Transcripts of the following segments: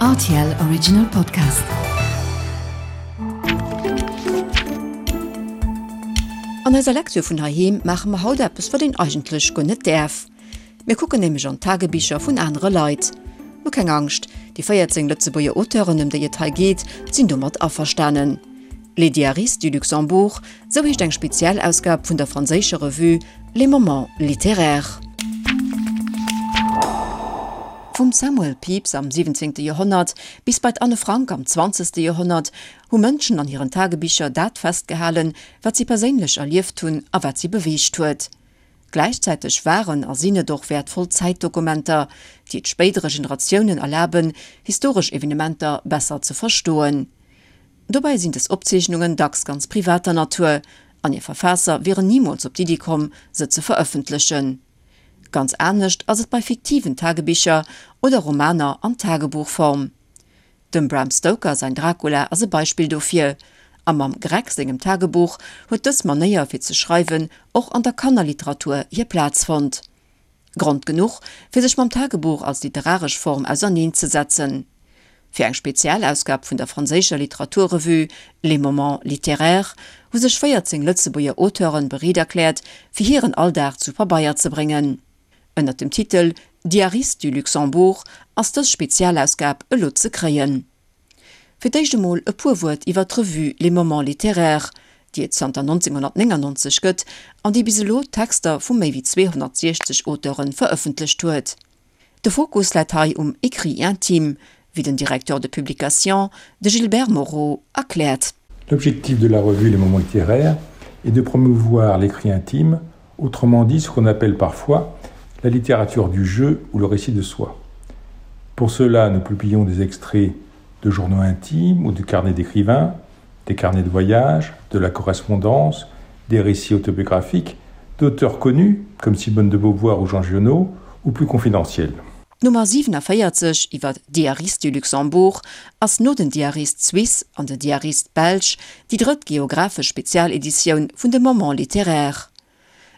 Rtl Original Podcast. An eiser Lecture vun heiheem maache mer haut eppes, wat een eigentlech guer net däerf. Mir kucken nämlech an d'Tagebicher vun anere Leit. Mä keng Angscht, déi 14 Lëtzebuerger Auteuren, ëm déi et hei geet, sinn domat averstanen. Les Diaristes du Luxembourg, sou heescht eng Spezialausgab vun der franséischer Revue Les Moments littéraires. Vum Samuel Pepys am 17. Joerhonnert bis bei d'Anne Frank am 20. Joerhonnert hu Mënschen an hiren Tagebicher dat festgehalen, wat si perséinlech erlieft hunn a wat si beweegt huet. Gläichzäiteg waren a sinn et och wäertvoll Zäitdokumenter, déi et spéidere Generatiounen erlaben, historesch Evenementer besser ze verstoen. Dobäi sinn dës Opzeechnungen dacks ganz privater Natur an hir Verfaasser wieren nimools op d'Iddi komm, se ze verëffentlechen. Ganz anescht ass et bei fiktiven Tagebicher oder Romaner an Tagebuchform. Dem Bram Stoker säin Dracula ass e Beispill dofir, a mam Greg sengem Tagebuch huet dës Manéier fir ze schreiwen och an der Kannerliteratur hir Plaz fonnt. Grond genuch, fir sech mam Tagebuch als literaresch Form auserneen ze setzen. Fir eng Spezialausgab vun der franséischer Literaturrevue Les Moments littéraires hu sech 14 Lëtzebuerger Auteuren bereet erkläert, fir hiren Alldag zu Pabeier ze bréngen. Ënnert dem Titel Diaristes du Luxembourg ass dës Spezialausgab elo ze kréien. Fir d'éischt emol e puer Wuert iwwer d'Revue Les Moments littéraires, déi et zanter 1999 gëtt an déi bis elo Texter vu méi wéi 260 Auteure verëffentlecht huet. De Fokus läit hei um Écrit intime, wéi den Directeur de publication, de Gilbert Moreau, erkläert. L'objectif de la revue Les Moments littéraires est de promouvoir l'écrit intime, autrement dit ce qu'on appelle parfois la littérature du jeu ou le récit de soi. Pour cela, nous publions des extraits de journaux intimes ou de carnets d'écrivains, des carnets de voyage, de la correspondance, des récits autobiographiques, d'auteurs connus comme Simone de Beauvoir ou Jean Giono ou plus confidentiels. D'Nummer 47 iwwer Diaristes du Luxembourg ass no den Diaristes suisses an den Diaristes belges déi drëtt geographesch Spezialeditioun vun de Moments littéraires.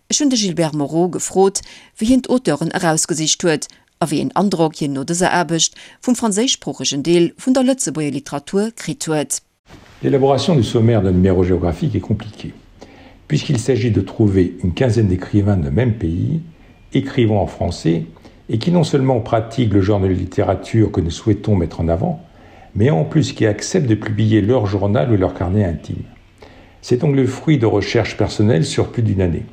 Ech hunn de Gilbert Moreau gefrot, wéi hien d'Auteuren erausgesicht huet a wéi een Androck hien no dëser Aarbecht vum franséischsproochegen Deel vun der Lëtzebuerger Literatur kritt huet. L'élaboration du sommaire d'un numéro géographique est compliquée, puisqu'il s'agit de trouver une quinzaine d'écrivains de même pays, écrivant en français, et qui non seulement pratiquent le genre de littérature que nous souhaitons mettre en avant, mais en plus qui acceptent de publier leur journal ou leur carnet intime. C'est donc le fruit de recherches personnelles sur plus d'une année.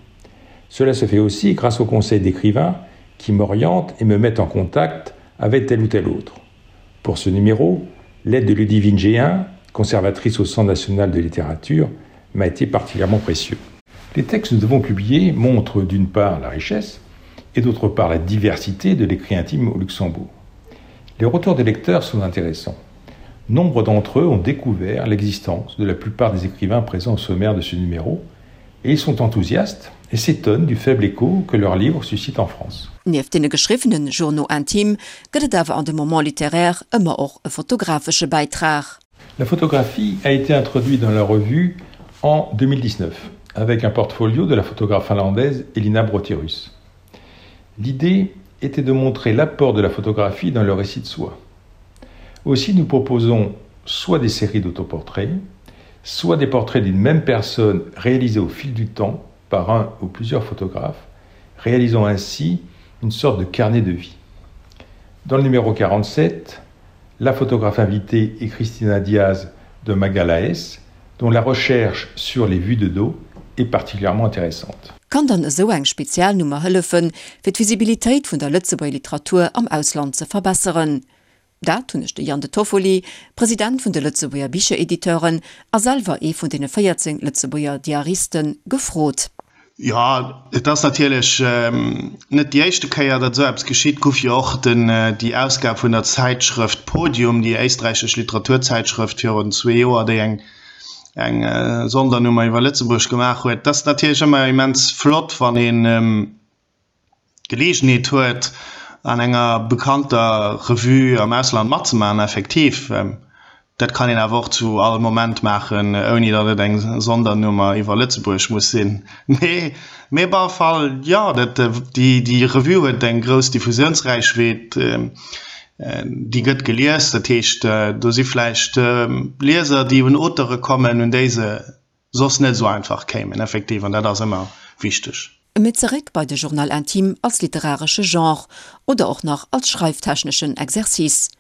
Cela se fait aussi grâce au conseil d'écrivains qui m'orientent et me mettent en contact avec tel ou tel autre. Pour ce numéro, l'aide de Ludivine G1, conservatrice au Centre national de littérature, m'a été particulièrement précieux. Les textes que nous avons publiés montrent d'une part la richesse et d'autre part la diversité de l'écrit intime au Luxembourg. Les retours des lecteurs sont intéressants. Nombre d'entre eux ont découvert l'existence de la plupart des écrivains présents au sommaire de ce numéro et ils sont enthousiastes et s'étonnent du faible écho que leurs livres suscitent en France. Nieft deene geschriwwene Journaux intimes gëtt et awer an de Moments littéraires ëmmer och e fotografesche Bäitrag. La photographie a été introduite dans la revue en 2019 avec un portfolio de la photographe finlandaise Elina Brotirus. L'idée était de montrer l'apport de la photographie dans le récit de soi. Aussi nous proposons soit des séries d'autoportraits, soit des portraits d'une même personne réalisés au fil du temps par un ou plusieurs photographes, réalisant ainsi une sorte de carnet de vie. Dans le numéro 47, la photographe invitée est Christina Diaz de Magalaes, dont la recherche sur les vues de dos est particulièrement intéressante. Kann dann esou eng Spezialnummer hëllefen, fir d'Visibilitéit vun der Lëtzebuerger Literatur am Ausland ze verbesseren? Dat hunn ech de Jan De Toffoli, President vun de Lëtzebuerger Bicherediteuren a selwer ee vun deene 14 Lëtzebuerger Diaristen, gefrot. Jo, et ass natierlech net déi éischte Kéier, datt esou eppes geschitt. Gouf jo och den, déi Ausgab vun der Zäitschrëft Podium, déi éisträichesch Literaturzäitschrëft virun zwee Joer, déi eng, eng Sondernummer iwwer Lëtzebuerg gemaach huet. Et ass natierlech ëmmer immens flott, wann een, d'Geleegenheet huet, an enger bekannter Revue am Ausland matzemaachen, effektiv. Dat kann een awer och zu all Moment maachen, ouni datt et eng Sondernummer iwwer Lëtzebuerg muss sinn. Mee, mee op alle Fall, jo, dat, déi, déi Revue huet eng grouss Diffusiounsräichweet. Déi gëtt gelies, dat heescht, do si vläicht Lieser, déi un Auteure kommen, un déi se soss net esou einfach kéimen, effektiv, an dat ass ëmmer wichteg. Mee zeréck bei de Journal intime als literaresche Genre oder och nach als schreiftechneschen Exercice.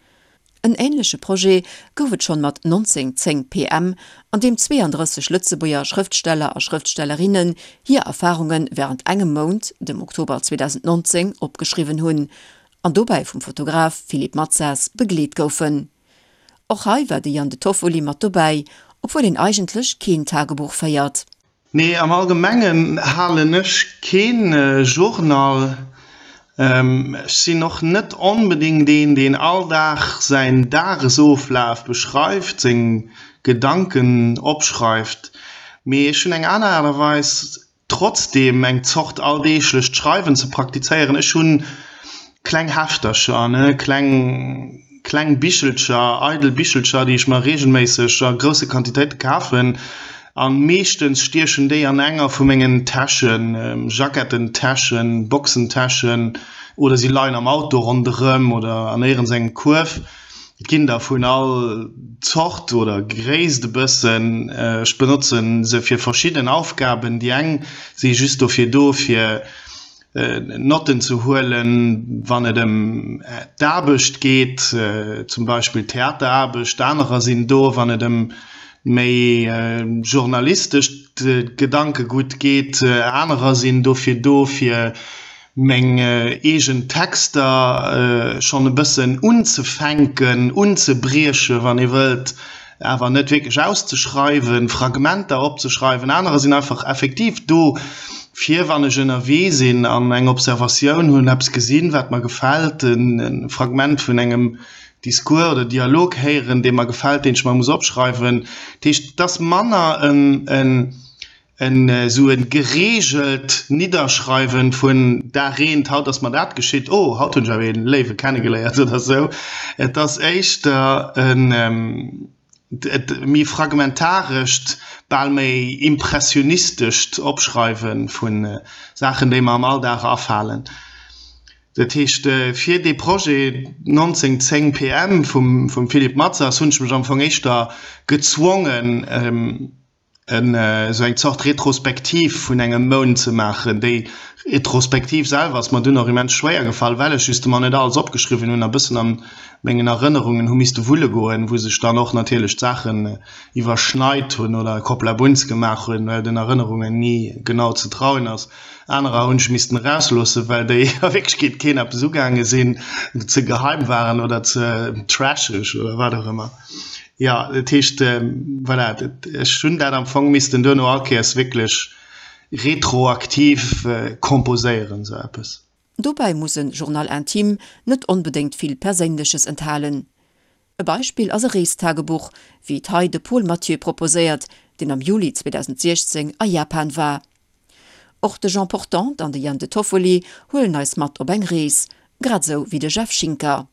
En änleche Projet gouf et schonn mat 1910 PM, an deem 32 Lëtzebuerger Schrëftsteller a Schrëftstellerinnen hir Erfarunge wärend engem Mount, dem Oktober 2019, opgeschriwwen hunn an dobäi vum Fotograf Philippe Matsas begleet goufen. Och hei war de Yann De Toffoli mat dobäi, obwuel een eigentlech keen Tagebuch féiert. Nee, am Allgemengen halen ech keen Journal. Ech sinn och net onbedéngt een, deen all Dag säin Dagesoflaf beschreift, seng Gedanken opschreift, mee ech hunn eng aner Aart a Weis trotzdem eng Zort alldeeglecht Schreiwen ze praktizéieren. Ech hunn kleng Heftercher, ne, kleng, kleng Bichelcher, eidel Bichelcher, déi ech mer reegelméisseg a grousse Quantitéite kafen. A meeschtens stiechen déi an enger vu mengen Täschen, Jackettentäschen, Boxentäschen oder si leien am Auto ronderëm oder an éierens engem Kuerf. Et ginn der vun all Zort oder Gréisst e bëssen. Ech benotzen se fir verschidden Aufgaben. Déi eng si just dofir do, fir Notten ze huelen, wann et ëm d'Aarbecht geet, zum Beispill Theateraarbecht. Anerer sinn do, wann et ëm méi journalistescht Gedankegutt geet. Anerer sinn dofir do, fir meng eegen Texter schonn e bëssen unzefänken, unzebriechen, wann ee wëllt, awer net wierklech auszeschreiwen, Fragmenter opzeschreiwen. Anerer sinn einfach effektiv do, fir wann ech ënnerwee sinn an eng Observatioun hunn, eppes gesinn, wat mer gefält, e Fragment vun engem Discours oder Dialog héieren, dee mer gefält, deen ech mer muss opschreiwen. Dat heescht, et ass manner en En esou e gereegelt Nidderschreiwen vun Dag eent, haut ass mer dat geschitt, oh, haut hunn ech awer ee Léiwe kennegeléiert oder esou. Et ass éischter en méi fragmentarescht, bal méi impressionistescht Opschreiwe vu Saachen, déi mer am Alldag afalen. Dat heescht, fir dee Projet 1910 PM vum Philippe Matsas hunn ech mech am Fong éischter gezwongen, esou eng Zort Retrospektiv vun engem Mount ze maachen. Déi Retrospektiv selwer ass mer dunn och immens schwéier gefall, well ech justement net alles opgeschriwwen hunn a bëssen an mengen Erënnerungen hu misste wulle goen, wou sech dann och natierlech d'Saachen iwwerschneit hunn oder Kopplabunz gemaach hunn, well den Erënnerungen ni genau ze trauen ass. Anerer hunn ech missten erausloossen, well déi a Wierklechkeet keen eppes ugaange sinn, ze geheim waren oder ze trasheg oder wat och ëmmer. Jo, dat heescht, voilà, ech hunn dat am Fong missten duerno all Kéiers wierklech retroaktiv komposéieren, esou eppes. Dobäi muss e Journal intime net onbedéngt vill Perséinleches enthalen. E Beispill ass e Reestagebuch, wéi et hei de Paul Mathieu proposéiert, deen am Juli 2016 a Japan war. Och de Jean Portante an de Yann De Toffoli huelen eis mat op eng Rees, grad esou wéi de Jeff Schinker.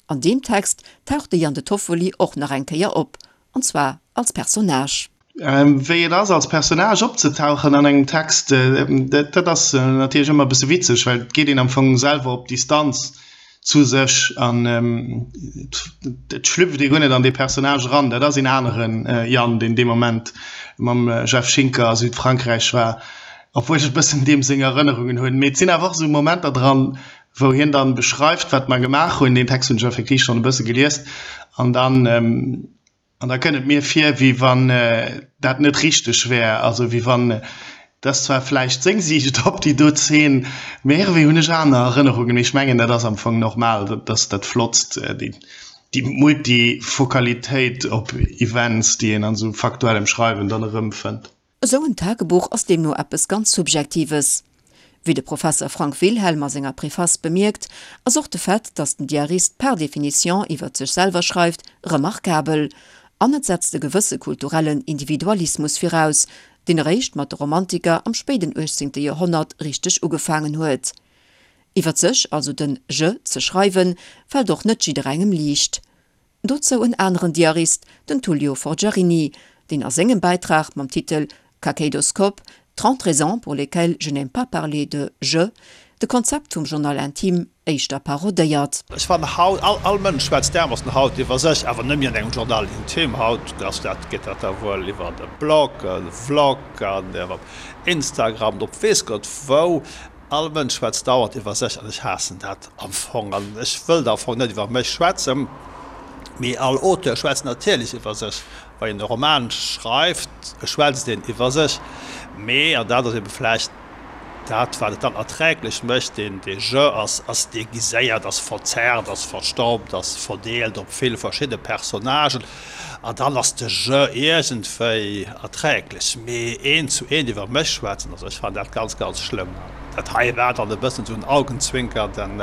An deem Text taucht de Yann De Toffoli och nach eng Kéier op, an zwar als Personnage. Wéi et ass, als Personnage opzetauchen an engem Text, dat ass natierlech ëmmer e bësse witzeg, well et geet een am Fong selwer op Distanz zu sech an et schlüpft ee guer net an dee Personnage eran. Dat ass een aneren Yann, deen dee Moment mam Jeff Schinker a Südfrankräich war, obwuel ech e bëssen deem seng Erënnerungen hunn. Mee et sinn awer och esou Momenter dran, wou hien dann beschreift, wat mer gemaach hunn, deen Text hunn ech effektiv schonn e bësse gelies, an dann, an da kënnt et mir vir, wéi wann dat net richteg wär, also wéi wann, et ass zwar vläicht seng Siicht op déi do Zeen, mee iergendwéi hunn ech aner Erënnerungen. Mee ech mengen, dat ass am Fong normal, dat ass dat Flottst, déi, déi Multifokalitéit op Events, déi een an esou faktuellem Schreiwen dann erëmfënnt. Esou en Tagebuch ass deemno eppes ganz Subjektives. Wéi de Professer Frank Wilhelm a senger Preface bemierkt, ass och de Fait, datt den Diarist par définition iwwert sech selwer schreift, remarkabel. An et setzt e gewësse kulturellen Individualismus viraus, deen eréischt mat de Romantiker am spéiden 18. Joerhonnert richteg ugefaangen huet. Iwwert sech, also den Je, ze schreiwen, fält och net jidderengem liicht. Dozou en aneren Diarist, den Tullio Forgiarini, deen a sengem Bäitrag mam Titel Kakéidoskop, 30 raisons pour lesquelles je n'aime pas parler de je. De Konzept vum Journal intime éischter parodéiert. Ech fannen haut, all, all Mënsch schwätzt därmoossen haut iwwer sech, awer net méi an engem Journal intime. Haut ass dat, geet dat da wuel iwwer e Blog, e Vlog an iwwer Instagram an op weess Gott wou. All Mënsch schwätzt dauernd iwwer sech an ech haassen dat am Fong an ech wëllt am Fong net iwwer mech schwätzen, mee all Auteur schwätzt natierlech iwwer sech. Wa een e Roman schreift, schwätzt een iwwer sech, mee, an dat ass ebe vläicht Dat, wat et dann erträglech mécht, deen dee Jeu ass, ass déguiséiert, ass verzerrt, ass verstaubt, ass verdeelt op vill verschidde Personnagen, an dann ass de Jeu iergendwéi erträglech. Mee eent zu eent iwwer mech schwätzen, also ech fannen dat ganz, ganz schlëmm. Dat hei war dann e bëssen esou en augenzwinkernden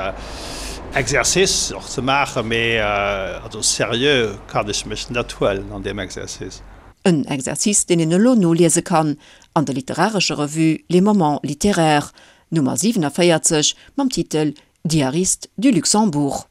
Exercice och ze maachen, mee also seriö kann ech mech net huelen an deem Exercice. En Exercice, deen een elo noliese kann an der literarescher Revue Les Moments littéraires, Nummer 47, mam Titel Diariste du Luxembourg.